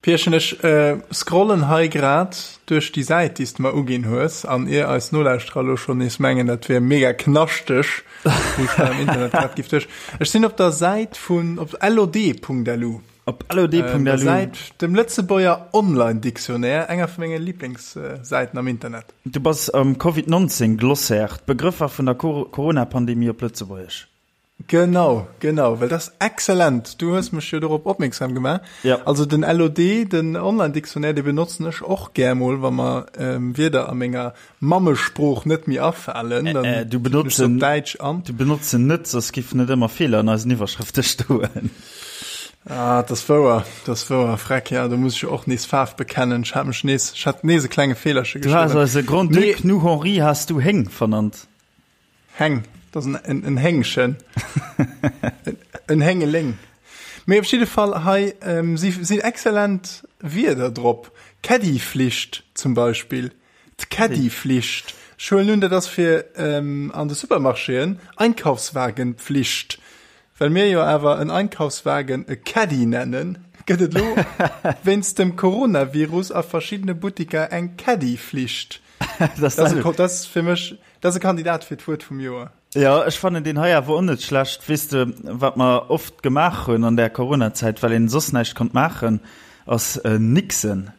Pierchen, ech scrollen hei grad duerch déi Säit, déi s de mer uginn hues, an ier eis Nolauschterer elo schonn nees mengen, dat wier mega knaschteg, wou ech da am Internet grad giff duerch. Ech sinn op der Säit vun, op lod.lu. Op lod.lu. Der Säit, dem Lëtzebuerger Online-Dictionnaire, enger vu menge Liblingssäiten am Internet. Du bass am Covid 19 Glossaire, d'Begrëffer vun der Corona-Pandemie op Lëtzebuergesch. Genau, genau, well dat ass exzellent. Du hues mech jo dorop opmierksam gemaach. Ja. Also den LOD, den Online-Dictionnaire, dee benotzen ech och gär mol, wa mer ähm, Wierder a menger Mammesprooch net méi afalen. Äh, Dann äh, du tippen ech benotz se op en, Däitsch an. du benotz en net, soss giffen net ëmmer Feeler an eisen Iwwerschrëfte stoen. Ah, dat ass wouer, dat ass wouer, Freck, ja, do muss ech jo och nees Faarf bekennen. Ech hat mech nees, ech hat nees e klenge Feelerche Du has geschriwwen. eise Mee Grand-Duc nu Henri has du Héng vernannt. Heng, dat ass en, en Héngchen. En Héngeléng. Mee op jidde Fall hei ähm, si sinn exzellent Wierder drop. Caddyflicht zum Beispill. D'Caddyflicht. Ech huelen un, dat ass fir ähm, an de Supermarchéen, Einkaufswagenpflicht. Well mir jo awer en Einkaufswagen e Caddy nennen, gëtt et elo wéinst dem Coronavirus a verschiddene Buttiker eng Caddyflicht. Dat ass fir mech Dat ass e Kandidat fir d'Wuert vum Joer. Jo, ech fannen deen hei awer och net schlecht. Weess de, wat mer oft gemaach hunn an där Coronazäit, well een soss näischt konnt maachen, ass nixen.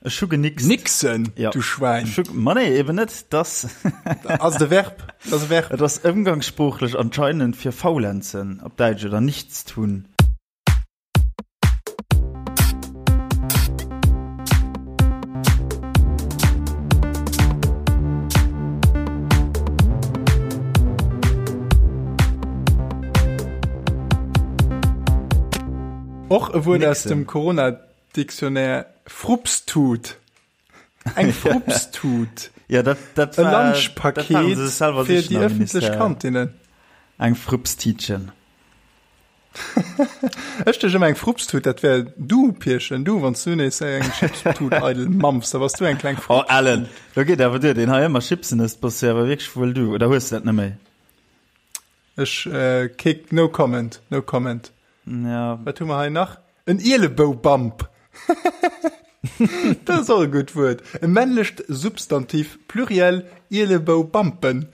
Ech hu genixt. Nixen? Jo. Du Schwäin. Ech hu, ma nee, eben net. Dass. Ass et e Verb? Dat ass e Verb. Et ass ëmgangssproochlech anscheinend fir faulenzen op Däitsch oder nichtstun. Och e Wuert aus Nixen. dem Corona-Dictionnaire, Frupstut. Eng Frupstut. Ja, dat, dat E war, dat waren Lunchpaket se selwer fir sichen déi am ëffentlech Ministère. Kantinnen. Eng Frupstiitchen. Ech duecht ëmmer eng Frupstut, dat wär du, Pierchen, du, wann s du nees eng Chipstut eidel mampfs, da bass du eng kleng Oh, Frupstut. Alan, do geet awer duer, deen hei ëmmer Chipsen ësst, bass jo awer wierklech wuel du, oder hues du dat net méi? Ech, äh, kick, no comment, no comment. Ja. Wat hu mer hei nach? En Ieleboubamp. Dat ass och e gutt Wuert. E männlecht Substantiv, Pluriel, Ieleboubampen.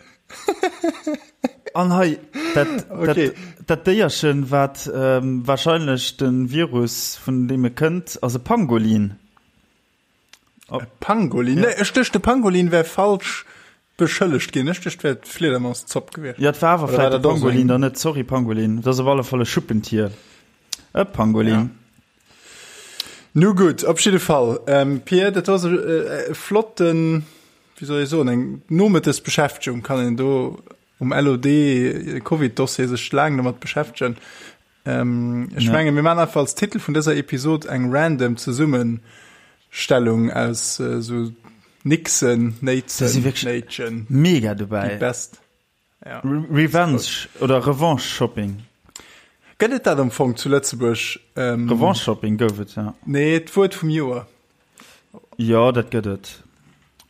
An hei, dat, Okay. dat, dat Déierchen, wat ähm, wahrscheinlech de Virus, vun deem e kënnt, ass e Pangolin. E Pangolin? Nee, ech duecht, de Pangolin wär falsch beschëllegt ginn. Ech duecht, et wär d'Fliedermauszopp gewiescht. Ja, et war awer Oder war vläicht e dat och esou Pangolin eng? dann net. Sorry, Pangolin. Et ass op alle Fall e Schuppentier. E Pangolin. Ja. Nu gutt, op jidde Fall, ähm, Pir, dat ass e, e flotten, wéi soll ech soen, eng Nomëttesbeschäftegung kann een do um LOD Covid-Dossier sech laang domat beschäftegen. Ähm, ech Ja. menge mir man einfach als Titel vun dëser Episod eng random Zesummenstellung aus äh, so Nixen, Da si Néitsen, wierklech Néitchen, mega déi dobäi. best. Ja. Re Revenge oder Revanche Shopping. Gëtt et dat am Fong zu Lëtzebuerg? Ähm, Revanche Shopping gouf et, ja. Nee, d'Wuert vum Joer. Jo, dat gëtt et.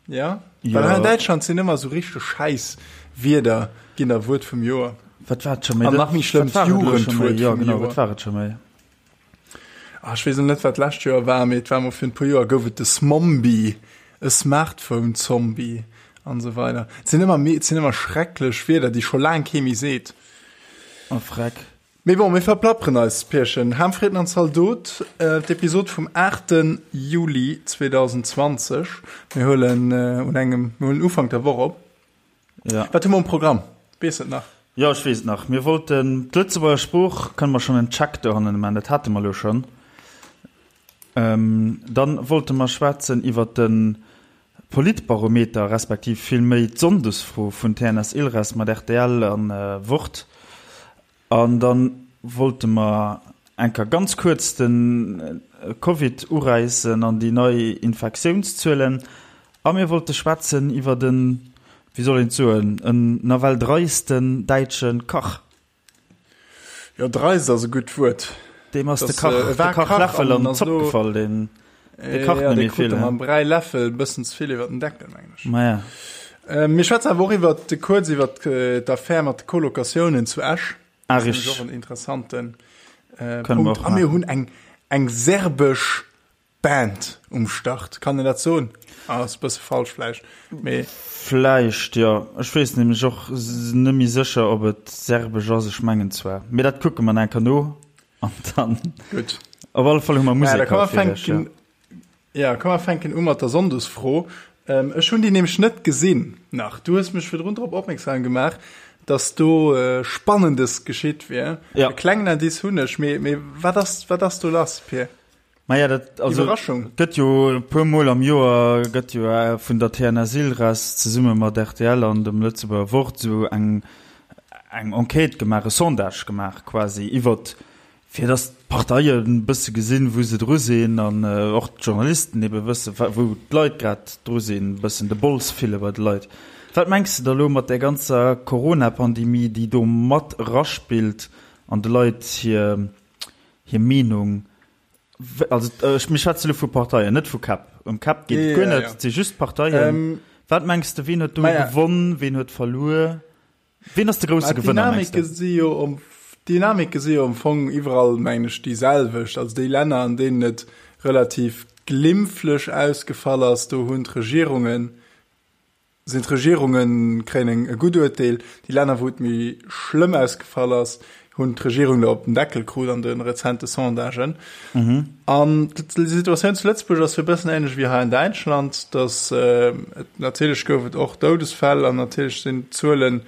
Ja? Jo. Well hei an Däitschland sinn ëmmer sou richteg schäiss Wierder ginn da Wuert vum Joer. Wat war et scho méi? An nach méi schlëmm, Wat war et elo scho méi? d'Jugendwuert Jo, vum genau, Joer. wat war et scho méi? Ah, ech weess elo net, wat d'lescht Joer war, mee et war mol virun e puer Joer gouf et de Smombie, e Smartphone-Zombie an esou weider. Et sinn ëmmer méi, et sinn ëmmer schrecklech Wierder, déi scho laang kee méi seet. Oh, freck. Mee bon, mir verplapperen eis, Pierchen. Ham, Fritten an Zaldot, d'Episod vum 8. Juli 2020. Mir huelen un engem, mir huelen Ufank der Woch op. Ja. Wat hu mer um Programm? Weess et nach? Jo, ech weess et nach. Mir wollten d'Lëtzebuerger Sprooch, kënne mer schonn en Check dohannen maachen, dat hate mer elo schonn. Dann wollte mer schwätzen iwwer de Politbarometer, respektiv vill méi d'Sonndesfro vun TNS Ilres mat rtl a Wort. An da wollte mer eng Kéier ganz kuerz de Covid uräissen an déi nei Infektiounszuelen. A mir wollte schwätzen iwwert en, wéi soll een et soen, en nawell dreisten däitsche Kach. Jo, dreist ass e gutt Wuert. Deem ass de Kach, de Kachläffel an d'Zopp gefall. Deen, dee kacht net méi vill. Mam Bräiläffel e bëssen ze vill iwwer den Deckel, mengen ech. Maja. Mir schwätzen awer och iwwer, kuerz iwwer d'Affär mat de Colocatiounen zu Esch. Ah, Dat ass richteg. och en interessanten Kënne mer Punkt. och A mir maachen. hunn eng, eng serbesch. Band um Start. Kann een dat soen? Ah, ass e bësse falsch vläicht, mee. Vläicht, jo. Ech weess nämlech och net méi sécher, ob et serbesch ass. Ech mengen zwar, mee dat kucke mer nach eng Kéier no an dann. Gutt. Op alle Fall hu mer Musek haut fir iech, jo. Ja, komm mer fänken u mat der Sonndesfro. Ech hunn déi nämlech net gesinn nach. Du hues mech virdrun drop opmierksam gemaach, dass do Spannendes geschitt wier. Ja. E klengen Indice hunn ech, mee, mee wat ass, wat ass do lass, Pir? Maja, dat, also, Iwwerraschung. gëtt jo e puer Mol am Joer gëtt jo vun der TNS Ilres zesumme mat rtl an dem Lëtzebuerger Wort esou eng, eng Enquête gemaach, e Sondage gemaach quasi iwwert Fir datt d'Parteien e bësse gesinn, wou se dru sinn an och d'Journalisten ebe wësse wou d'Leit grad dru sinn, e bëssen de Bols fille bei de Leit. Wat mengs de da lo mat där ganzer Corona-Pandemie, déi do mat eraspillt an de Leit hir hir Meenung? Also ech, mir schwätze lo vu Parteien, net vu Käpp. Ëm Käpp geet et guer net, et si just d'Parteien. Wat mengs de, wien huet do gewonn, wien huet verluer? Wien ass de grousse Gewënner, mengs du? Si jo om, D'Dynamike si jo am Fong iwwerall, mengen ech, déi selwecht. Also déi Länner, an deenen et relativ glimpflech ausgefall ass, do hunn d'Regierungen, sinn d'Regierunge kréien eng e gutt Uerteel. Déi Länner, wou et méi schlëmm ausgefall ass, hunn d'Regierung der op den Deckel krut an de rezente Sondagen. An d'Situatioun zu Lëtzebuerg ass jo e bëssen ähnlech wéi hei an Däitschland, datt et natierlech gouf et och Doudesfäll an natierlech sinn d'Zuelen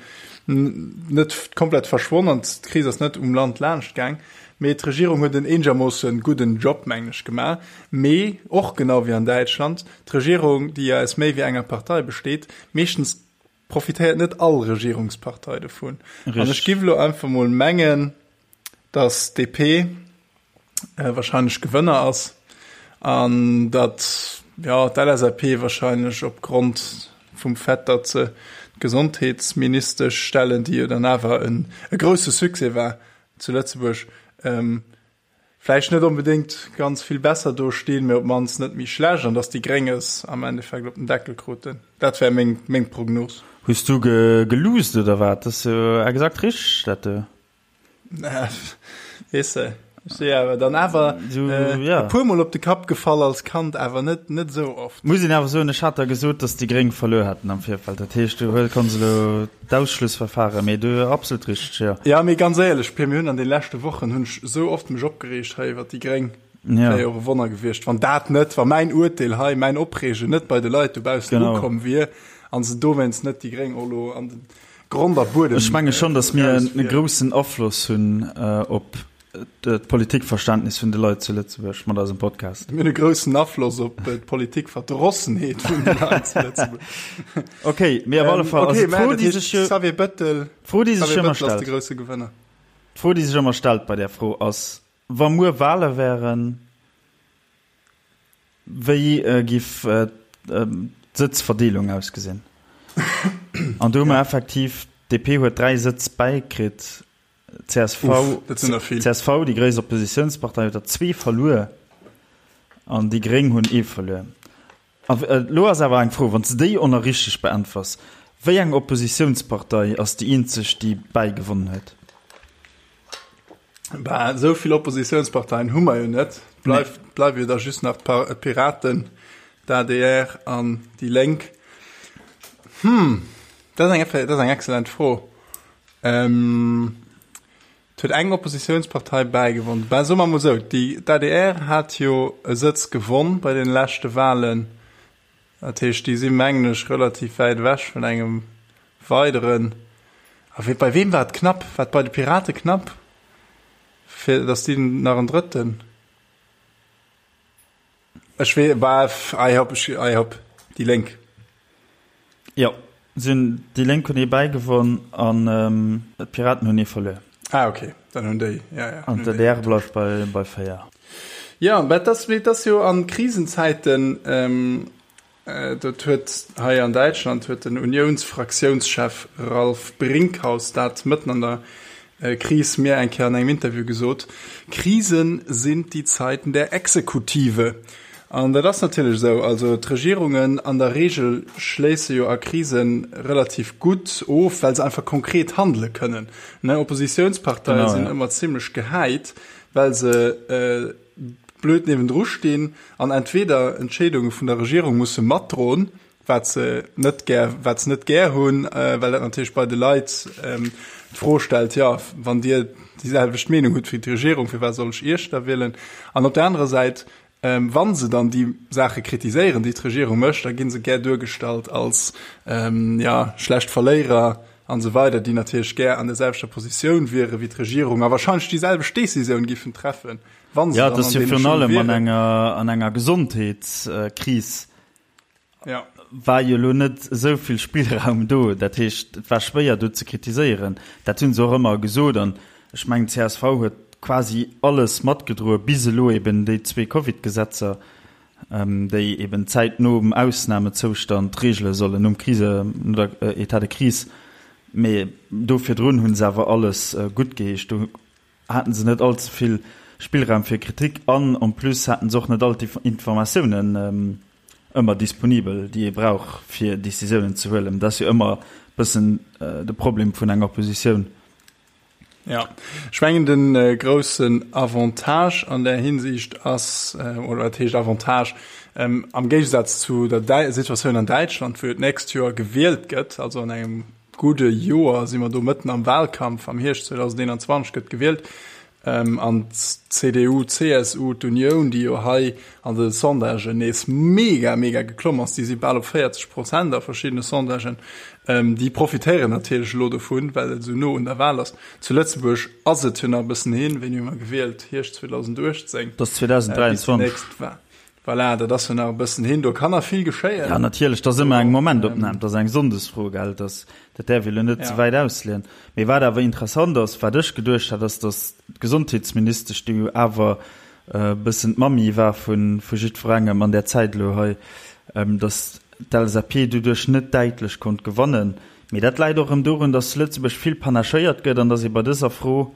net komplett verschwonn an d'Kris ass net um Land laanscht gaang. Mee d'Regierung huet en eenegermoosse gudden Job, mengen ech, gemaach. Mee och genau wéi an Däitschland, d'Regierung, déi jo aus méi wéi enger Partei besteet, meeschtens profitéiert net all Regierungspartei dovun. An ech giff elo einfach mol mengen, datt DP wahrscheinlech Gewënner ass an datt jo d'LSAP wahrscheinlech opgrond vum Fait, datt se d'Gesondheetsministesch stellen, déi jo dann awer en e grousse Succès war zu Lëtzebuerg, vläicht net onbedéngt ganz vill besser do stinn, mee op d'mannst net méi schlecht an dass déi Gréng es am Endeffekt op den Deckel kruten. Dat wär meng, meng Prognos. Hues du geluusst oder wat? Dat ass jo exakt richteg, dat do. Weess de, ech si awer dann awer e puermol op de Kapp gefall als Kand, awer net, net esou oft. Muss een awer soen, ech hat der gesot, dass déi Gréng verluer hätten am Virfeld. Dat heescht, du konns elo D'Ausschlussverfahren, mee du absolut richteg, jo. Ja, mee ganz éierlech, Pir, mir hunn an de leschte Wochen hunn ech esou oft mech opgereegt hei iwwert déi Gréng. Ja. Wär jo och e Wonner gewiescht, wann dat net, wa mäin Urteel hei, mäin Opreegen net bei de Leit dobaussen Genau. ukomm wier a se dowéinst net déi Gréng och elo an de Grond a Buedem Ech menge schonn, datt mir eraus e wier. groussen Afloss hunn op d'Politikverständnis vun de Leit zu Lëtzebuerg mat eisem Podcast. Mir hunn e groussen Afloss op d'Politikverdrossenheet vun de Leit zu Lëtzebuerg. Ok, mee op alle Fall, okay, also d'Fro, déi sech jo, Xavier Bettel, d'Fro, déi sech Xavier ëmmer Bettel ass de stellt, grousse Gewënner. d'Fro, déi sech ëmmer stellt bei där Fro ass, wa muer Wale wären, wéi giff d'Sëtzverdeelung ausgesinn? An do hu mer effektiv, d'DP huet 3 Sëtz bäikritt, Csv, Uff, dat sinn der vill. Csv, déi gréisst Oppositiounspartei, huet der zwee verluer an déi Gréng hunn ee verluer. A elo ass awer eng Fro, wann s de déi och nach richteg beäntwers, Wéi eng Oppositiounspartei ass déi eenzeg, déi bäigewonnen huet? Bah, esou vill Oppositiounsparteien hu mer jo net. Bleift, bleiwe jo da just nach d'Piraten, d'ADR an déi Lénk. Hm, dat ass eng, dat ass eng excellent Fro. Ähm, et huet eng Oppositiounspartei bäigewonn. Ben, soe mer emol esou, déi, d'ADR hat jo e Sëtz gewonn bei deene leschte Wahlen. Dat heescht, déi si mengen ech relativ wäit ewech vun engem weideren. A wee, bei weem war et knapp? War et bei de Pirate knapp, fir datt déi nach en drëtten? Ech wee, bah, ei hopp, ech, ei hopp, déi Lénk. Jo, si hunn, déi Lénk hunn ee bäigewonn an d'Piraten hunn ee verluer. Ah, okay, dann hunn déi, ja, ja. An d'ADR bleift bei, bei 4. Jo, mä et ass, mee et ass jo a Krisenzäiten, Dat huet hei an Däitschland huet den Uniounsfraktiounschef Ralf Brinkhaus dat mëtten an der Kris mir eng Kéier an engem Interview gesot, Krisen sind die Zeiten der Exekutive. An dat ass natierlech esou. Also d'Regierungen an der Reegel schléisse jo a Krise relativ gutt of, well se einfach konkret handele kënnen. Oppositiounsparteie sinn ëmmer zimmlech gehäit, well se. blöd niewendru stinn an entweder Entscheedunge vun der Regierung musse matdroen, wat se net gär, wat se net gär hunn, well dat natierlech bei de Leit d'Fro stellt, jo, wann Dir déi selwecht Meenung hutt wéi d'Regierung, firwat soll ech Iech da wielen? An op der anerer Säit, wa se dann déi Saache kritiséieren, déi d'Regierung mécht, da gi se gär duergestallt als, jo, schlecht Verléierer an esou weider, déi natierlech gär an der selwechter Positioun wiere wéi d'Regierung a wahrscheinlech déi selwecht Décisioun giffen treffen, wa se dann an deene Schung wieren. Jo, et ass jo virun allem an enger, an enger Gesondheetskris Ja. War jo elo net esou vill Spillraum do. Dat heescht, et war schwéier do ze kritiséieren. Dat hu se och ëmmer gesot. An ech mengen, csv huet quasi alles matgedroe bis elo eben déi zwee Covid-Gesetzer, déi eben d'Zäit nom Ausnamezoustand regele sollen, nom Krise, no der État de crise. Mee do virdrun hu se awer alles guttgeheescht. Do haten se net all ze vill Spillraum fir Kritik an en plus haten se och net all d'Informatiounen ëmmer disponibel, déi ee brauch fir Decisiounen ze huelen. Dat ass jo ëmmer e bëssen de Problem vun enger Oppositioun. Jo, ech mengen de groussen Avantage an där Hinsicht ass, oder wat heescht Avantage, am Géigesaz zu der Situatioun an Däitschland, wou jo d'nächst Joer gewielt gëtt, also an engem gudde Joer si mer do mëtten am Wahlkampf, am Hierscht 2021 gëtt gewielt, an d'CDU, CSU, d'Unioun, déi jo hei an de Sondagen nees mega, mega geklomm ass, déi si bal op 40 Prozent a verschiddene Sondagen, déi profitéieren natierlech elo dovun, well et esou no un der Wahl ass. Zu Lëtzebuerg ass et jo nach e bëssen hin, wéini hu mer gewielt? Hierscht 2018? Dat ass 2023. Voilà, dat ass jo nach e bëssen hin, do kann nach vill geschéien. Ja, natierlech, dat ass ëmmer eng Momentopnam, dat ass eng Sonndesfro, gell, dat, dat däerf ee lo net ze wäit ausleeën. Mee wat awer interessant ass, wat ech geduecht hat, ass, datt d'Gesondheetsministesch, déi jo awer e bëssen d'Mammi war vu jiddwerengem an där Zäit elo hei, datt d'LSAP doduerch net däitlech konnt gewannen. Mee dat läit och erëm dorun, datt zu Lëtzebuerg vill panachéiert gëtt an datt ee bei dëser Fro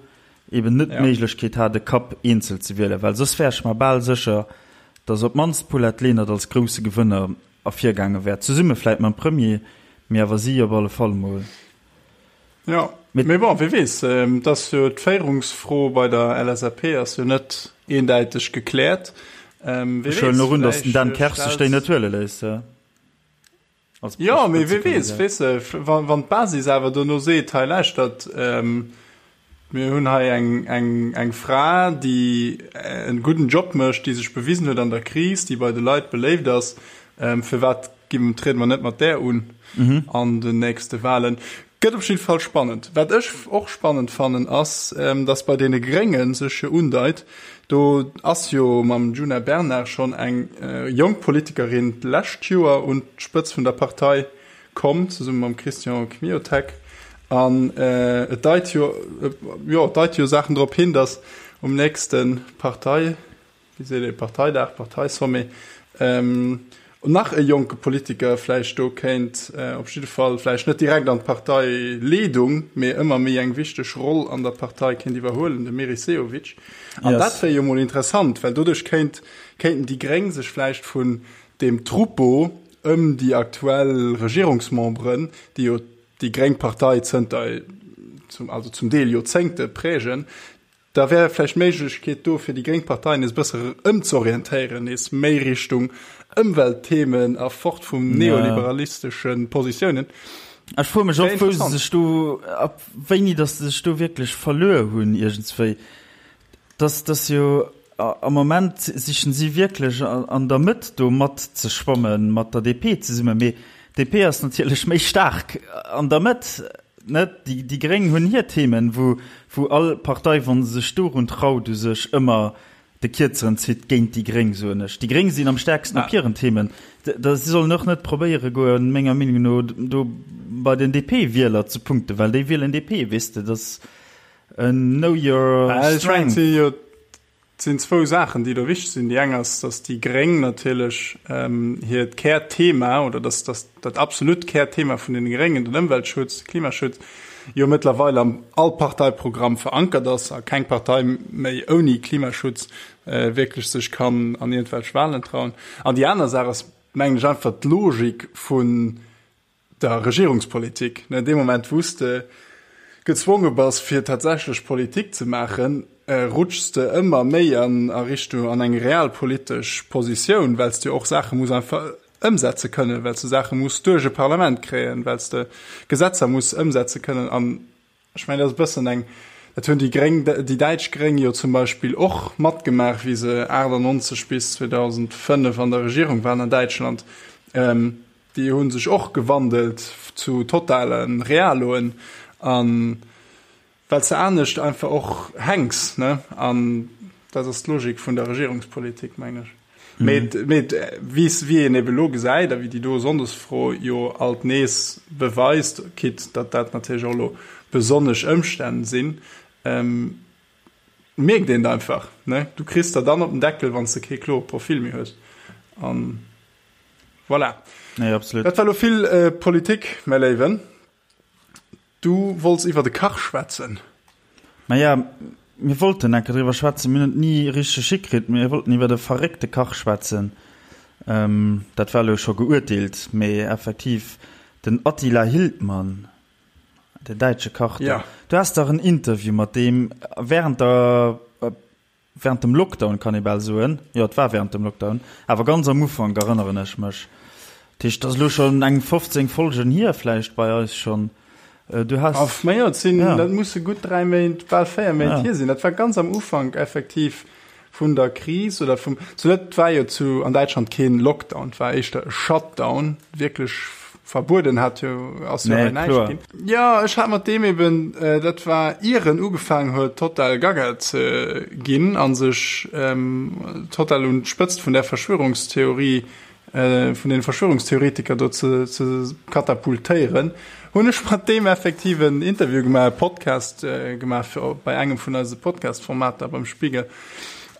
eben net d'Méiglechkeet hat e Kapp eenzel ze wielen, well soss wär ech mer bal sécher, datt op d'mannst d'Paulette Lenert als grousse Gewënner ervirgaange wär, zesumme vläit mam Premier, mee awer si op alle Fall mol. Jo, mee bon, wie weess, et ass jo d'Féierungsfro bei der LSAP ass jo net eendäiteg gekläert. Ech huelen och un, datt den Dan Kersch sech déi net huele léisst. Jo, mee wie weess, weess de, wann d'Basis awer dono seet, hei lauschtert, mir hunn hei eng Fra, déi e gudden Job mécht, déi sech bewisen huet an der Kris, déi bei de Leit beléift ass, firwat triede mer net mat där un an den nächste Wahlen? Gëtt op jidde Fall spannend. Wat ech och spannend fannen, ass, datt bei deene Grénge sech jo undeit, do ass jo mam Djuna Bernard schonn eng jonk Politikerin d'lescht Joer un d'Spëtz vun der Partei komm, zesumme mam Christian Kmiotek. An et deit jo, jo, et deit jo Saachen drop hin, datt um nächste Partei, wéi seet ee, Parteidag, Parteisommet, nach e jonke Politiker vläicht do kéint, op jidde Fall vläicht net direkt an d'Parteileedung, mee ëmmer méi eng wichteg Roll an der Partei kéint iwwerhuelen, de Meris Sehovic. An dat wär jo mol interessant, well doduerch kéint, kéinten déi Gréng sech vläicht vun deem Troupeau ëm déi aktuell Regierungsmemberen, déi jo déi gréng Partei zënter, also zum Deel Joerzéngte prägen, Da wär vläicht d'Méiglechkeet do, fir déi gréng Partei nees e bësse ëmzorientéieren, nees méi Richtung Ëmweltthemen a fort vum neoliberalistesche Positiounen. Ech froe mech och, wou se sech do, ab wéini datt se sech do wierklech verluer hunn iergendswéi. Dass, dass jo am Moment sichen si wierklech an der Mëtt do matzeschwammen, mat der DP zesummen. Mee d'DP ass natierlech méi staark an der Mëtt. Net? Déi, déi Gréng hunn hir Themen, wou, wou all Partei, wa se sech dorun traut, u sech ëmmer de Kierzeren zitt géint déi Gréng, soen ech. Déi Gréng sinn am stäerksten op hiren Themen. Da, si sollen och net probéiere goen, menger Meenung no, do bei den DP-Wieler ze punkten, well déi wielen DP, weess de. Dat ass en Know your strength. Et sinn zwou Saachen, déi do wichteg sinn. Déi eng ass, datt déi Gréng natierlech hiert Kärthema oder datt datt dat absolut Kärthema vun deene Gréngen, den Ëmweltschutz, de Klimaschutz, jo mëttlerweil am all Parteiprogramm verankert ass a keng Partei méi ouni Klimaschutz wierklech sech kann an iergendwelch Wahlen trauen. An déi aner Saach ass, mengen ech, einfach d'Logik vun der Regierungspolitik, ne, dee Moment wou s de gezwonge bass fir tatsächlech Politik ze maachen. rutschs de ëmmer méi an a Richtung an eng realpolitesch Positioun, well s de jo och Saache muss einfach ëmsetze kënnen, well s de Saache muss duerch e Parlament kréien, well s de Gesetzer muss ëmsetze kënnen. An ech mengen, dat ass e bëssen eng, dat hunn déi Gréng, déi däitsch Gréng jo zum Beispill och matgemaach, wéi se 98 bis 2005 an der Regierung waren an Däitschland. Déi hu sech och gewandelt zu totale Realoen. An Well s de anescht einfach och hänks, ne? An dat ass d'Logik vun der Regierungspolitik, meng ech. Mee, mee wéi wéi een ebe lo gesäit a wéi déi do Sonndesfro jo alt nees beweist, quitte datt dat natierlech och elo besonnesch Ëmstänn sinn, mierkt een et einfach, ne? Du kriss der dann op den Deckel, wann s de kee klore Profil méi hues. An voilà. Nee, absolut. Dat war elo vill Politik, mäi Léiwen. Du wollts iwwer de Kach schwätzen. Maja, mir wollten enke driwwer schwätzen, mir hunn et ni richteg hikritt. Mir wollten iwwer e verréckte Kach schwätzen. Dat war elo scho geuerteelt, mee effektiv den Attila Hildmann, den däitsche Kach do. Du has dach en Interview mat deem während der Während dem Lockdown, kann ee bal soen. Jo, et war während dem Lockdown, awer ganz am Ufank, erënneren ech mech. Dat heescht, et ass elo schonn eng 15 Folgen hier vläicht bei eis schonn. Du has. Aff, ma jo, et sinn, dat musse gutt 3 Méint, bal 4 Méint hier sinn. Dat war ganz am Ufank effektiv vun der Kris oder vum, zu dat war jo zu an Däitschland keen Lockdown, et war éischter e Shutdown, wierklech verbueden hat jo ass jo hei näischt ginn. Jo, ech hat mat deem eben, dat war ier en ugefaangen huet total gaga ze ginn a sech total un d'Spëtzt vun där Verschwörungstheorie, vun deene Verschwörungstheoretiker do ze ze katapultéieren, hunn ech mat deem effektiv en Interview gemaach, e Podcast gemaach fir bei engem vun eise Podcast-Formater beim Spiegel.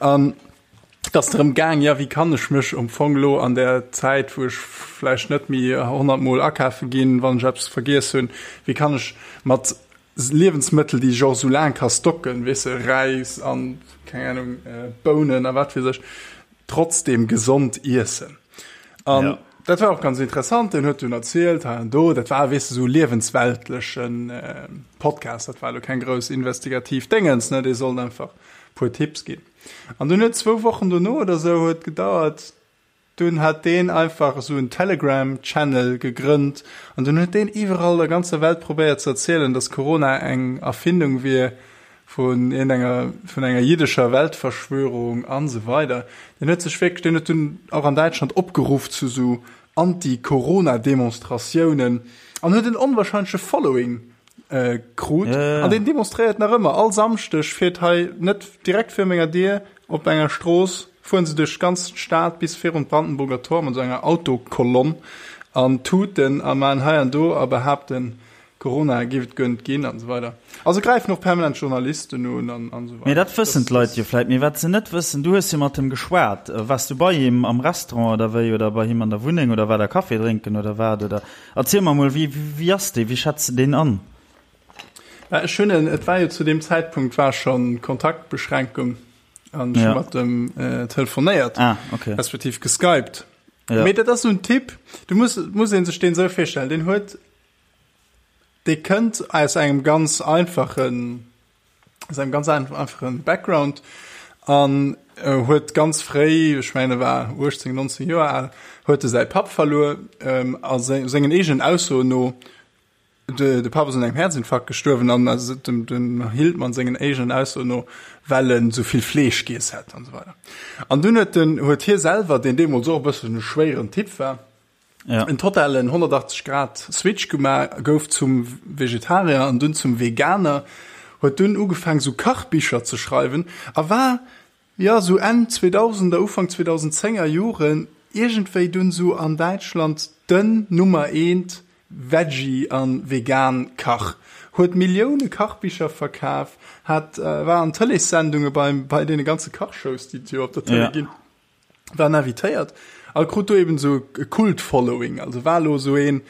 An Et ass drëm gaang, jo, wéi kann ech mech am Fong elo an där Zäit, wou ech vläicht net méi 100 Mol akafe ginn, wann ech eppes vergiess hunn, wéi kann ech mat Liewensmëttel, déi ech och esou laang ka stocken, weess de, Räis an, keng Ahnung, Bounen a wat weess ech, trotzdeem gesond iessen. An dat war och ganz interessant. Deen huet dunn erzielt, hei an do, dat war, weess de, esou e liewensweltlechen Podcast, dat war elo keng grouss investigativ Déngens, ne, dee sollt einfach e puer Tipps ginn. An dunn huet zwou Wochen dono oder sou huet gedauert, dunn hat deen einfach esou en Telegram Channel gegrënnt an dunn huet deen iwwerall der ganzer Welt probéiert ze erzielen, dass Corona eng Erfindung wier vun iergendenger, vun enger jiddescher Weltverschwörung an esou weider. Deen huet sech wierklech, deen huet dunn och an Däitschland opgeruff zu sou Anti-Corona-Demonstratiounen an huet en onwahrscheinleche Following krut. An deen demonstréiert nach ëmmer. All Samschdeg fiert hei net direkt vir menger Dier op enger Strooss, fueren se duerch d'ganz Stad bis virun d'Brandenburger Tor mat esou enger Autokolonn an tuten a maachen hei an do a behaapten, Corona géif et guer net ginn an esou weider. Also gräifen och permanent Journalisten un an esou weider. Mee dat wëssen d'Leit jo vläit. Mee wat se net wëssen, du hues jo mat him geschwat. Waars du bei him am Restaurant oder wéi oder bei him an der Wunneng oder war der Café drénken oder wat? Oder erziel mer mol, wéi, wéi ass dee? Wéi schätz de deen an? Mä ech hunn en, et war jo zu deem Zäitpunkt war schonn Kontaktbeschränkung an ech hu mat em telefonéiert, respektiv geskypt. Mee dat ass esou en Typ, du muss, muss ee sech deen esou virstellen, deen huet, Dee kënnt aus engem ganz einfachen, aus engem ganz einfachen Background an huet ganz fréi, ech mengen e war 18, 19 Joer al, huet e säi Papp verluer a sengen eegenen Aussoen no, de de Papp ass un engem Häerzinfarkt gestuerwen an dem dem Hildmann sengen eegenen Aussoen no, well en esou vill Fleesch giess hätt an esou weider. An dunn huet den huet hie selwer, deen deemools och e bëssen e schwéieren Typ war, ja. en totalen 180 Grad Switch gemaach, gouf zum Vegetarier an dunn zum Veganer, huet dunn ugefaang sou Kachbicher ze schreiwen a war ja sou Enn 2000er Ufank 2010er Joren iergendwéi dunn sou an Däitschland den Nummer eent Veggie an vegan Kach. Huet Millioune Kachbicher verkaf, hat war an Tëleessendunge beim bei deene ganze Kachshows déi et jo op der Tëlee ginn. War invitéiert a krut do eben sou e Kult-Following, also war elo sou een,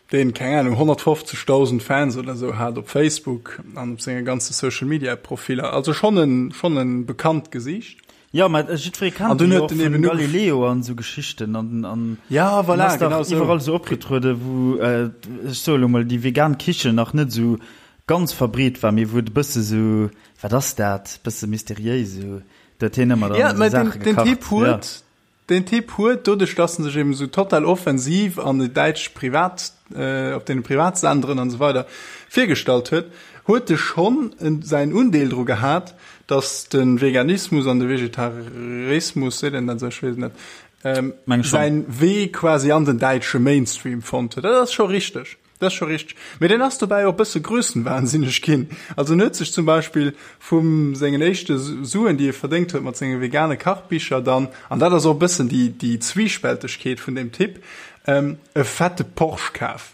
deen, keng Ahnung, 150.000 Fans oder sou hat op Facebook an op senge ganze Social-Media-Profiller, also schonn en, schonn en bekannt Gesiicht. Jo, mä jiddweree kennt en jo och vun Galileo an sou Geschichten an, an ja, voilà, genau sou. Iwwerall sou opgetrueden, wou, ech soe lo mol, déi vegan Kichen nach net sou. ganz verbreet war, mee wou et e bësse sou, wat ass dat, bësse mysteriéis esou, do huet hien ëmmer dann esou Saache gekacht. Den Typ huet, den Typ huet, doduerch dass en sech eben esou total offensiv an de däitsch Privat, op deene Privatsenderen an esou weider virgestallt huet, huet e schonn säin Undeel dru gehat, dass de Veganismus an de Vegetarismus, seet een dat esou, ech weess et net, säin Wee quasi an den däitsche Mainstream fonnt huet. Dat ass scho richteg. Dat ass scho richteg. Mee deen ass dobäi och e bësse grössenwahnsinneg ginn. Also en huet sech zum Beispill vu sengen éischte Suen, déi e verdéngt huet mat senge vegane Kachbicher dann, an dat ass och e bëssen déi, déi Zwiespältegkeet vun deem Typ, e fette Porsche kaf.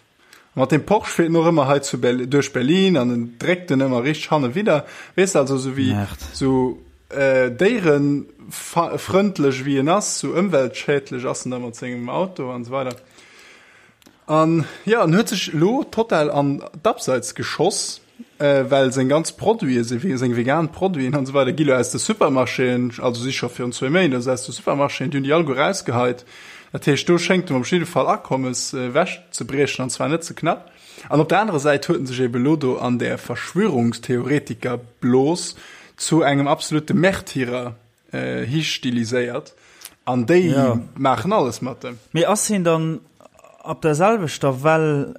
A mat deem Porsche fiert en och ëmmer hei zu Berlin, duerch Berlin an en dréckt en ëmmer richteg hanne widder. Weess de, also esou wéi esou déierefrëndlech wéi en ass, esou ëmweltschädlech ass en da mat sengem Auto an esou weider. An jo, en huet sech elo total an d'Abseits geschoss, well seng ganz Produiten, seng vegan Produiten an esou weider gi lo aus de Supermarchéen, also si scho virun zwéi Méint aus de Supermarchéen, déi hunn déi alleguer erausgeheit. Dat heescht, do schéngt em op jidde Fall Akommes ewechzebriechen, an zwar net ze knapp. An op der anerer Säit huet en sech ebe lo do an där Verschwörungstheoretiker-Blos zu engem absolute Märtyrer histiliséiert an déi ja. maachen alles mat dem. Mee ass hien dann op der selwechter Well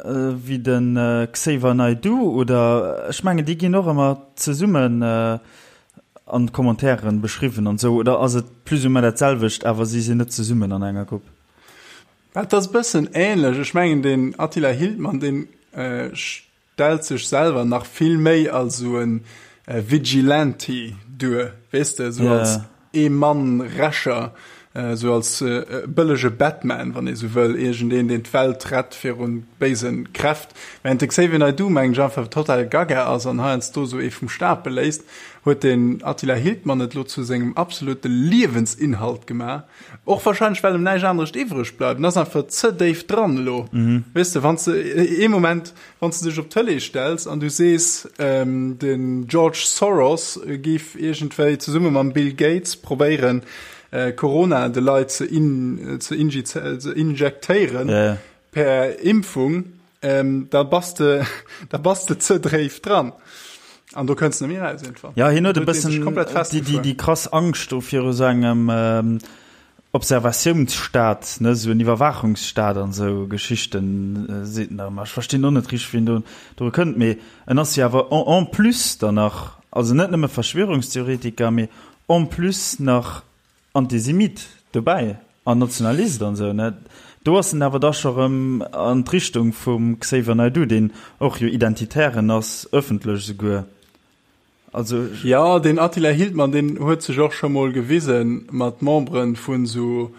wéi den Xavier Naidoo oder ech mengen déi ginn och ëmmer zesummen an Commentairen beschriwwen an sou oder ass et plus ou moins dat selwecht awer si sinn net zesummen an enger Grupp? Et ass e bëssen ähnlech. Ech mengen den Attila Hildmann deen stellt sech selwer nach vill méi als esou e Vigilante duer, weess de, esou als Ee-Mann-Rächer, esou als bëllege Batman, wann ee sou wëll, iergendeen, deen d'Welt rett viru béise Kräft. Während de Xavier Naidoo, mengen ech, einfach total gaga ass an heiansdo esou ee vum Stapel léisst, huet den Attila Hildmann et elo zu sengem absolute Liewensinhalt gemaach. Och wahrscheinlech, well em näischt anerescht iwwreg bleift. En ass einfach ze déif dran elo. Weess de, wann s de ee Moment, wann s de dech op d'Tëlee stells an du sees, den George Soros géif iergendwéi zesumme mam Bill Gates probéieren, Corona de Leit ze ze injektéieren per Impfung, da bass de, da bass de ze dréif dran. An do kënns de net méi eraus iergendwann. Ja, hien huet e bëssen déi, déi, déi krass Angscht do viru sou engem Observatiounsstaat, ne, sou en Iwwerwaachungsstaat an esou Geschichten, seet en da ëmmer. Ech verstinn och net richteg, wéi en do dru kënnt, mee en ass jo awer en, en plus dann nach, also net nëmme Verschwörungstheoretiker, mee en plus nach Antisemit dobäi an Nationalist an esou, ne? Do ass en awer da scho rëm an d'Richtung vum Xavier Naidoo, deen och jo Identitären ass, ëffentlech esouguer. Also. Jo, deen Attila Hildmann, deen huet sech och scho mol gewise mat Membere vun esou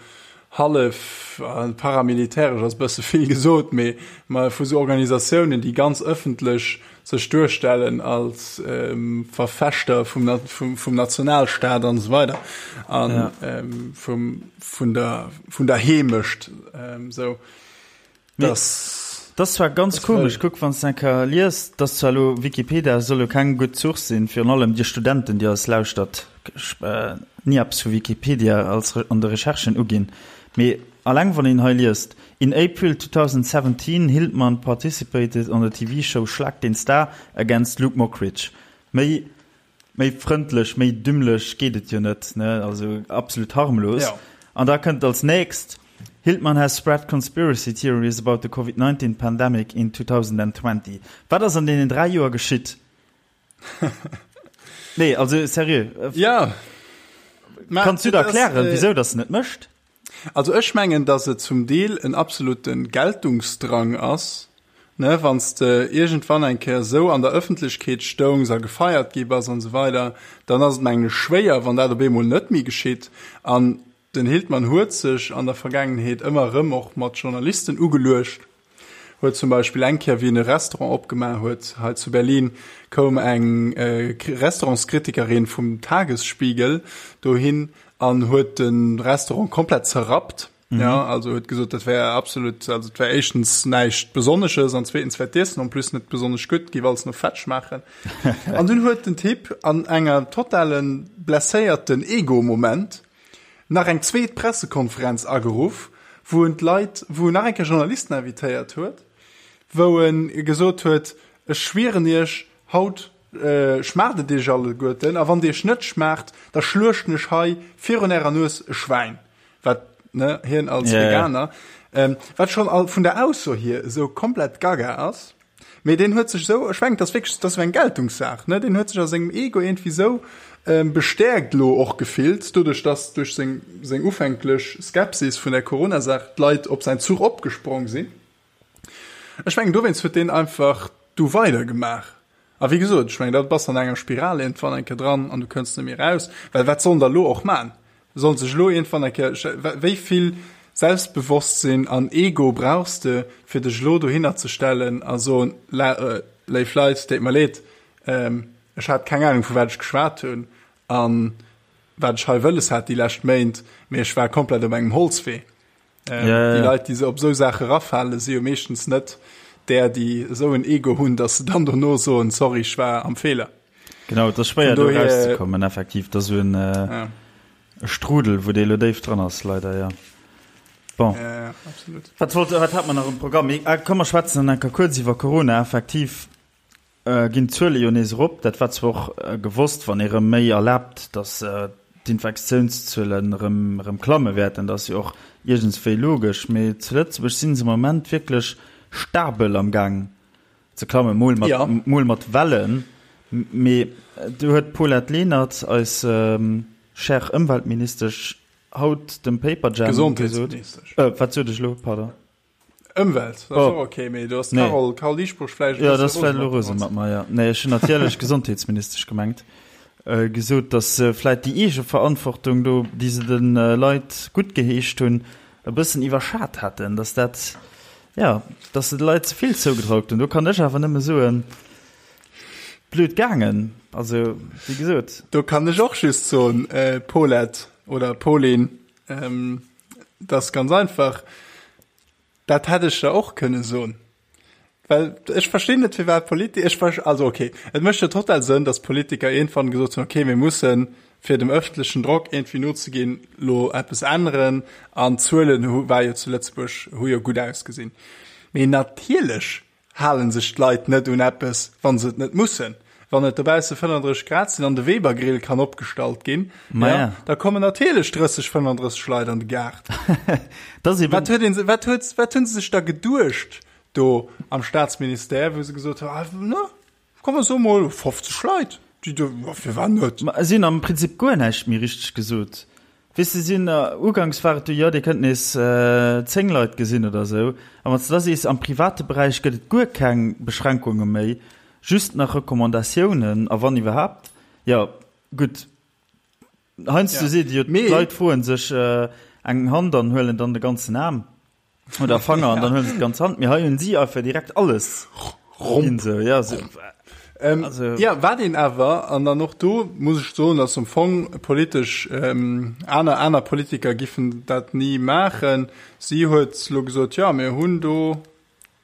hallef paramilitäresch ass e bësse vill gesot, mee vu sou Organisatiounen, déi ganz ëffentlech sech duerstellen als Verfechter vum Nationalstaat an esou weider an vum vun der Heemecht esou. Das das zwar ganz komesch kuck wann s enker liest dass zwar lo Wikipedia soll jo keng gutt Source sinn virun allem dir Studenten déi eis lauschtert ni eppes vu Wikipedia als an de Recherchen uginn mee alleng wann een hei liest In April 2017 Hildmann participated on the TV show Schlag den Star against Luke Mockridge méi Méi frëndlech, méi dümmlech geet et jo net, ne? Also absolut harmlos. Ja. An da kënnt als nächst, Hildmann has spread conspiracy theories about the Covid-19 pandemic in 2020. Wat ass an deenen 3 Joer geschitt? Nee, also seriö. Ja. Kanns du der erklären, äh, wieso das net mécht? Also ech mengen, dass et zum Deel en absolute Geltungsdrang ass, ne, wann s de iergendwann eng Kéier esou an der Ëffentlechkeet stoungs a gefeiert gi bass an esou weider, dann ass et mengen ech schwéier, wann dat op eemol net méi geschitt. An den Hildmann huet sech an der Vergaangenheet ëmmer erëm och mat Journalisten ugeluecht, huet zum Beispill eng Kéier, wéi en e Restaurant opgemaach huet hei zu Berlin, koum eng Restaurantskritikerin vum Tagesspiegel dohin an huet de Restaurant komplett zerrappt. Mhm. Ja, also huet gesot, dat wär absolut, also et wär éischtens näischt Besonnesches an zweetens wär d'Iessen en plus net besonnesch gutt, géif alles no Fett schmaachen. An dunn huet den Typ an enger totalen blesséierten Ego-Moment nach eng zweet Pressekonferenz ageruff, wou en d'Leit, wou en nach eng Kéier Journalisten invitéiert huet, wou en gesot huet, ech schwieren iech, Haut schmaacht et iech alleguerten, a wann et iech net schmaacht, da schluechten ech hei virun ärer Nues e Schwäin. Wat, ne, hien als Veganer, wat schonn all vun der Ausso hier esou komplett gaga ass. Mee deen huet sech esou, ech mengen, dat ass wierklech, dat ass esou eng Geltungssaach, ne, deen huet sech a sengem Ego iergendwéi esou bestäerkt elo och gefillt, doduerch dass duerch seng, seng ufänklech Skepsis vun der Corona-Saach d'Leit op säin Zuch opgesprong sinn. Ech mengen, dowéinst huet deen einfach du weidergemaach. A wéi gesot, ech mengen, da bass de an enger Spiral iergendwann eng Kéier dran an du kënns net méi eraus. Well wat sollen der elo och man? Sollen sech elo iergendwann eng Kéier, wéi vill Selbstbewosstsinn an Ego brauchs de, fir dech elo dohinner ze stellen a soen, Léif Leit, deet mer leed, ech hat keng Ahnung, vu wat ech geschwat hunn a wat ech hei wëlles hat déi lescht Méint, mee ech war komplett op engem Holzwee. Ähm, ja, ja. Déi Leit, déi se op esou Saache rafalen, si jo meeschtens net där, déi esou en Ego hunn, datt se dann dono soen, sorry, ech war am Feeler. Genau, et ass schwéier do rauszekommen, effektiv. Dat ass esou en äh, ja. Strudel, wou dee lo déif dran ass, leider, ja. Bon. Ja, ja, absolut. Wat wollt, wat hat mer nach um Programm? Ah, komm, mer schwätzen dann enker kuerz iwwer Corona, effektiv. Ginn d'Zuele jo nees erop. Dat war zwar och gewosst, wann ee rëm méi erlaabt, datt d'Infektiounszuelen erëm erëm klamme wäerten. Dat ass jo och iergendswéi logesch. Mee zu Lëtzebuerg si se am Moment wierklech stabel am Gaang ze klammen, mol mat, ja. mol mat Wellen. Mee do huet d'Paulette Lenert, eis chère Ëmweltministesch, haut dem Paperjam gesot. Wat sot ech elo? Pardon. Ëmwelt, dat ass och ok, mee do ass d'Carole, Carole Dieschbourg vläicht e bësse rose mat. Jo, dat ass vläicht elo rose mat mer, jo. Nee, ech hunn natierlech Gesondheetsministesch gemengt. Gesot, datt se vläicht déi Eegeverantwortung do, déi se de Leit guttgeheescht hunn, e bëssen iwwerschat hätten, datt dat, jo, datt se de Leit ze vill zougetraut hunn. Do kann ech awer nëmme soen, blöd gaangen. Also, wéi gesot. Do kann ech och just soen, Paulette oder Pauline, dat ass ganz einfach, Dat hätt ech der och kënne soen. Well ech verstinn net, firwat Politi-, ech ver-, also okay, et mécht jo total Sënn, datt Politiker iergendwann gesot hunn, okay, mir mussen, fir dem ëffentlechen Drock iergendwéi nozeginn, lo eppes änneren an d'Zuelen hu, war jo zu Lëtzebuerg, hu jo gutt ausgesinn. Mee natierlech Halen sech d'Leit net un eppes, wann se et net mussen? Wann et dobausse 35 Grad sinn an de Weber-Grill kann opgestallt ginn, ja, da kommen natierlech 30, 35 Leit an de Gaart. Wat huet een, wat huet, wat hunn se sech da geduecht do am Staatsministère, wou se gesot hunn, ah, ne, komm mer soe mol 50 Leit, déi do, firwat net? Ma si hunn am Prinzip guer näischt méi richteg gesot. Weess de, sinn, uganks war et du, jo, dir kënnt nees 10 Leit gesinn oder esou. A wann s de da sees, am private Beräich gëtt et guer keng Beschränkunge méi, just nach Recommandatiounen, a wann iwwerhaapt, jo, gutt, heiansdo seet ee jo, d'Leit froe sech eng Hand an huelen dann de ganzen Aarm. Oder Fanger an dann huelen se d'ganz Hand. Mee hei hunn si einfach direkt alles ginn sou, ja, sou. Ähm, also, ja, wat een awer, an dann och do muss ech soen, dass am Fong politesch ähm, aner, aner Politiker giffen dat ni maachen. Si huet lo gesot, ja, mir hunn do,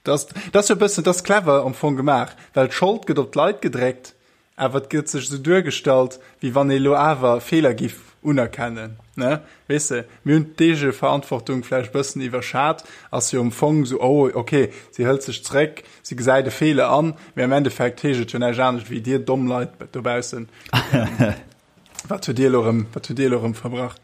das, das jo e bëssen, das clever am Fong gemaach, well d'Schold gëtt op d'Leit gedréckt Awer et gëtt sech esou duergestallt, wéi wann ee lo awer Feeler giff unerkennen, ne? Weess de, mir hunn d'Eegeverantwortung vläicht e bëssen iwwerschat, ass jo am Fong esou, oh, ok, si hëlt sech zréck, si gesäit e Feeler an, mee am Endeffekt heescht et jo näischt anescht wéi, dir domm Leit dobaussen, wat hutt dir elo erëm, wat hutt dir elo erëm verbrach?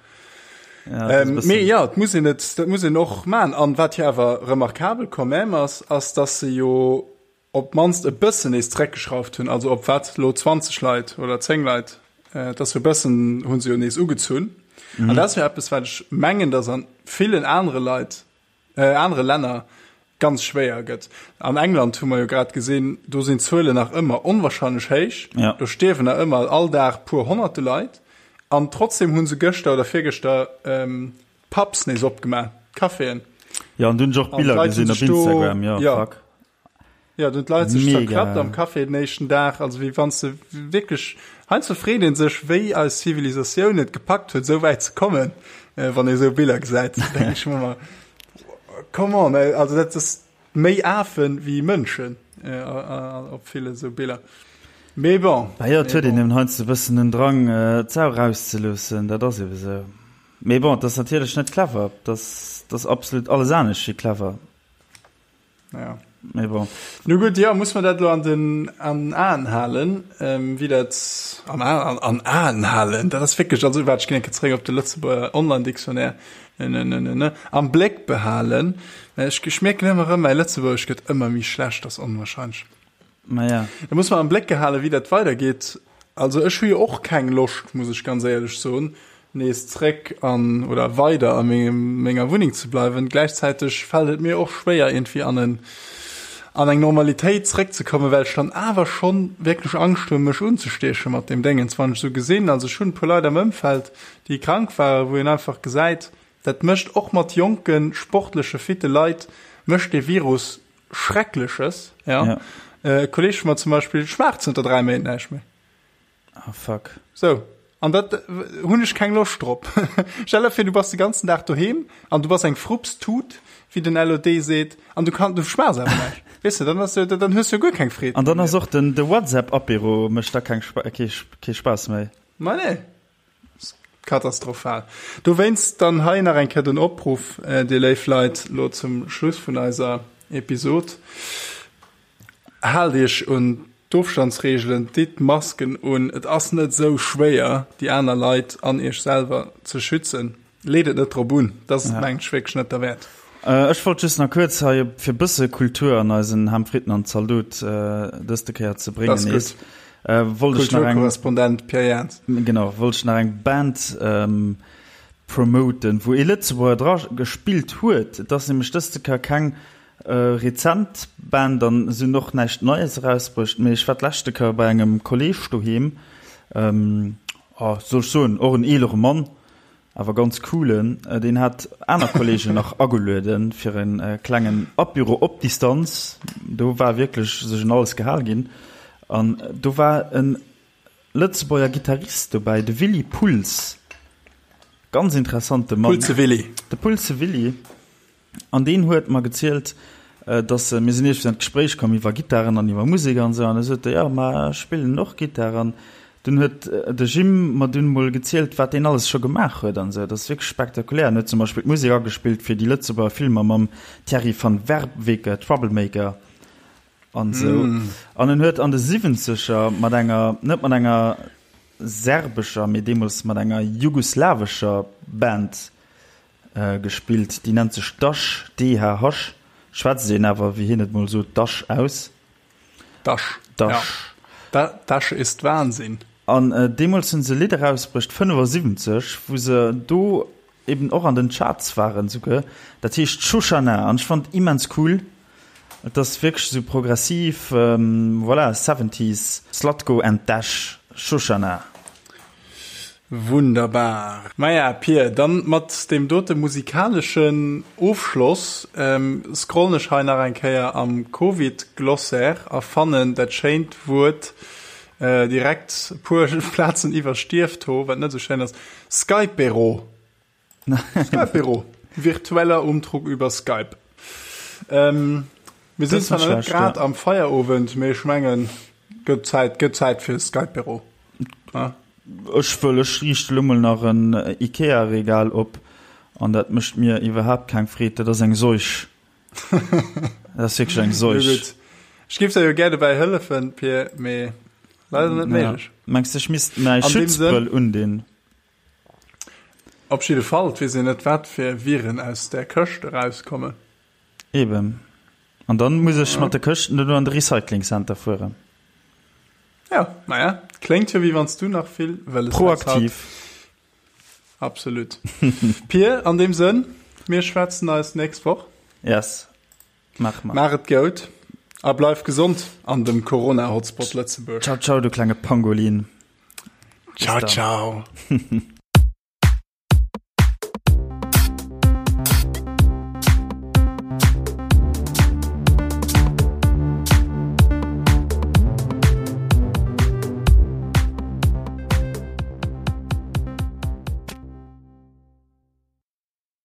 Mee jo, et muss een et, dat muss een och maachen. An wat jo awer remarkabel quand même ass, ass, dass se jo, op d'mannst e bëssen nees zeréckgeschrauft hunn, also op wat elo 20 Leit oder 10 Leit, et ass jo e bëssen, hu se jo nees ugezunn. Mhm. An dat ass jo eppes, wat ech mengen, datt an villen anere Leit, äh, anere Länner ganz schwéier gëtt. An England hu mer jo grad gesinn, do sinn d'Zuelen nach ëmmer onwahrscheinlech héich. Ja. Do stierwen nach ëmmer all Dag puer honnerte Leit. An trotzdem hu se gëschter oder virgëschter ähm, d'Pubs nees opgemaach, d'Caféen. Ja, an dunn ech och Biller gesinn op Instagram, ja, ja. fuck. Ja, du d'Leit sech zerklappt am Café den éischten Dag, also wéi wann se wierklech, heiansdo freet een sech, wéi eis Zivilisatioun et gepackt huet, esou wäit ze kommen, wann ee sou Biller gesäit, denke ech mer ëmmer, come on, also dat ass méi Afen wéi Mënschen op ville sou Biller. Mee bon. Bah jo, et huet een eben heiansdo e bëssen den Drang, d'Sau erauszeloossen, dat ass ebe sou. Mee bon, et ass natierlech net clever, et ass absolut alles anescht wéi clever. Ja. Mee bon. Nu gutt, jo, muss mer dat elo an den an Aen halen, wéi dat an Aen an Aen halen, dat ass wierklech, also waart, ech ginn eng Kéier zeréck op de Lëtzebuerger Online-Dictionnaire, ne, ne, ne, ne, ne, am Bléck behalen. Mä ech ech mierken ëmmer erëm, mäi Lëtzebuergesch gëtt ëmmer méi schlecht, dat ass onwahrscheinlech. Maja. Da muss mer am Bléck gehalen, wéi dat weidergeet. Also ech hu jo och keng Loscht, muss ech ganz éierlech soen, nees zréck an oder weider a mengem menger Wunneng ze bleiwen. Gläichzäiteg fält et mir och schwéier iergendwéi an en an eng Normalitéit zréckzekommen, well ech dann awer schonn wierklech Angscht hunn, mech unzestieche mat deem Déngens, wann ech esou gesinn. Also ech hunn e puer Leit am Ëmfeld, déi krank waren, wou een einfach gesäit, dat mécht och mat jonke sportleche fitte Leit mécht dee Virus Schreckleches, ja. ja. Äh, Kolleg vun mer zum Beispill schmaacht zënter 3 Méint näischt méi. Ah, fuck. So. An dat äh, hunn ech keng Loscht drop. Stell dir fir, du bass de ganzen Dag doheem an du bass eng Frupstut, wéi den LOD seet, an du kann du schmaachs awer näischt. Weess du, dann ass du, dann hues du jo guer keng Freed. An dann ass och den de WhatsApp-Apéro mécht da keng Spa kee, kee Spaass méi. Ma nee. Katastrophal. Dowéinst dann hei nach eng Kéier den Opruff, dir léif Leit, lo zum Schluss vun eiser Episod, Haalt iech un d'Ofstandsreegelen, ditt d'Masken un. Et ass net esou schwéier, déi aner Leit an iech selwer ze schützen. Leet et net drop un, dat ass mengen ech wierklech net derwäert. Ech wollt just nach kuerz hei, fir e bësse Kultur an eisen Ham Fritten an Zaldot dëste Kéier ze bréngen nees, wollt ech nach eng. Kulturkorrespondent Pierre Jans. Genau, wollt ech nach eng Band promoten, wou ee Lëtzebuerger dra gespillt huet. Et ass nämlech dëste Kéier keng rezent Band an se hunn och näischt Neies erausbruecht, mee ech war d'leschte Kéier bei engem Kolleeg doheem, oh, soll ech soen, och en eelere Mann, Awer ganz coolen. Deen hat aner Kollegen nach agelueden fir en klengen Apéro op Distanz. Do war wierklech sech un alles gehal ginn. An do war en Lëtzebuerger Gittarist dobäi, de Willy Puls. Ganz interessante Mann. Pulse Willy. De Pulse Willy. An deen huet mer gezielt, dass se, mir sinn iergendwéi an d'Gespréich komm iwwer Gittaren an iwwer Musek an esou, an da sot e, jo, ma ech spillen och Gittar. An dunn huet de Jim mer dunn emol gezielt, wat deen alles scho gemaach huet an esou. Dat ass wierklech spektakulär. En huet zum Beispill d'Musek agespillt fir déi Lëtzebuerger Filmer mam Thierry van Werveke, Troublemaker an esou. An en huet an de Siwwenzeger mat enger, net mat enger serbescher, mee deemools mat enger jugoslawescher Band Gespillt. Déi nennt sech Dash, DHH, schwätzt een awer, wéi hien et mol sot, Dash aus. Dash, Dash. Ja. Dash ist Wahnsinn. An deemools hunn se e Lidd erausbruecht, 75, wou se do eben och an den Charts waren souguer. Dat heescht Shoshana an ech fannen et immens cool. Et ass wierklech esou progressiv, voilà, Seventies, Zlatko and Dash, Shoshana. Wunderbar. Maja, Pir, dann mat deem dote musikaleschen Ofschloss scrollen ech hei nach eng Kéier am Covid-Glossaire a fannen dat schéint Wuert direkt e puer Plazen iwwer Stierfto, wat net esou schéin ass, Skypero. Skype-Büro. Virtueller Umtrug über Skype. Ähm, mir sinn zwar net grad am Feierowend, mee ech mengen, gëtt Zäit, gëtt Zäit fir Skype-Büro. Ja? Ech wëll, ech riichte lo mol nach en Ikea-Regal op an dat mécht mir iwwerhaapt keng Freed. Dat ass eng Seuch. Dat ass wierklech eng Seuch. Gutt. Ech géif der jo gär dobäi hëllefen, Pir, mee leider net méiglech. Mengs de, ech misst mäi Schutzbrëll undinn? Op jidde Fall, et weess een net wat fir Viren aus där Këscht erauskommen. Eben. An dann muss ech mat de Këschten dono an de Recycling Center fueren. Ja, naja, kléngt jo wéi wann s du nach vill wëlles häss haut. Proaktiv. Absolut. Pir, an deem Sënn, mir schwätzen eis nächst Woch. Yes, maache mer. Maach et goud a bleif gesond an dem Corona-Hotspot Lëtzebuerg. Ciao, ciao, du klenge Pangolin. Ciao, ciao.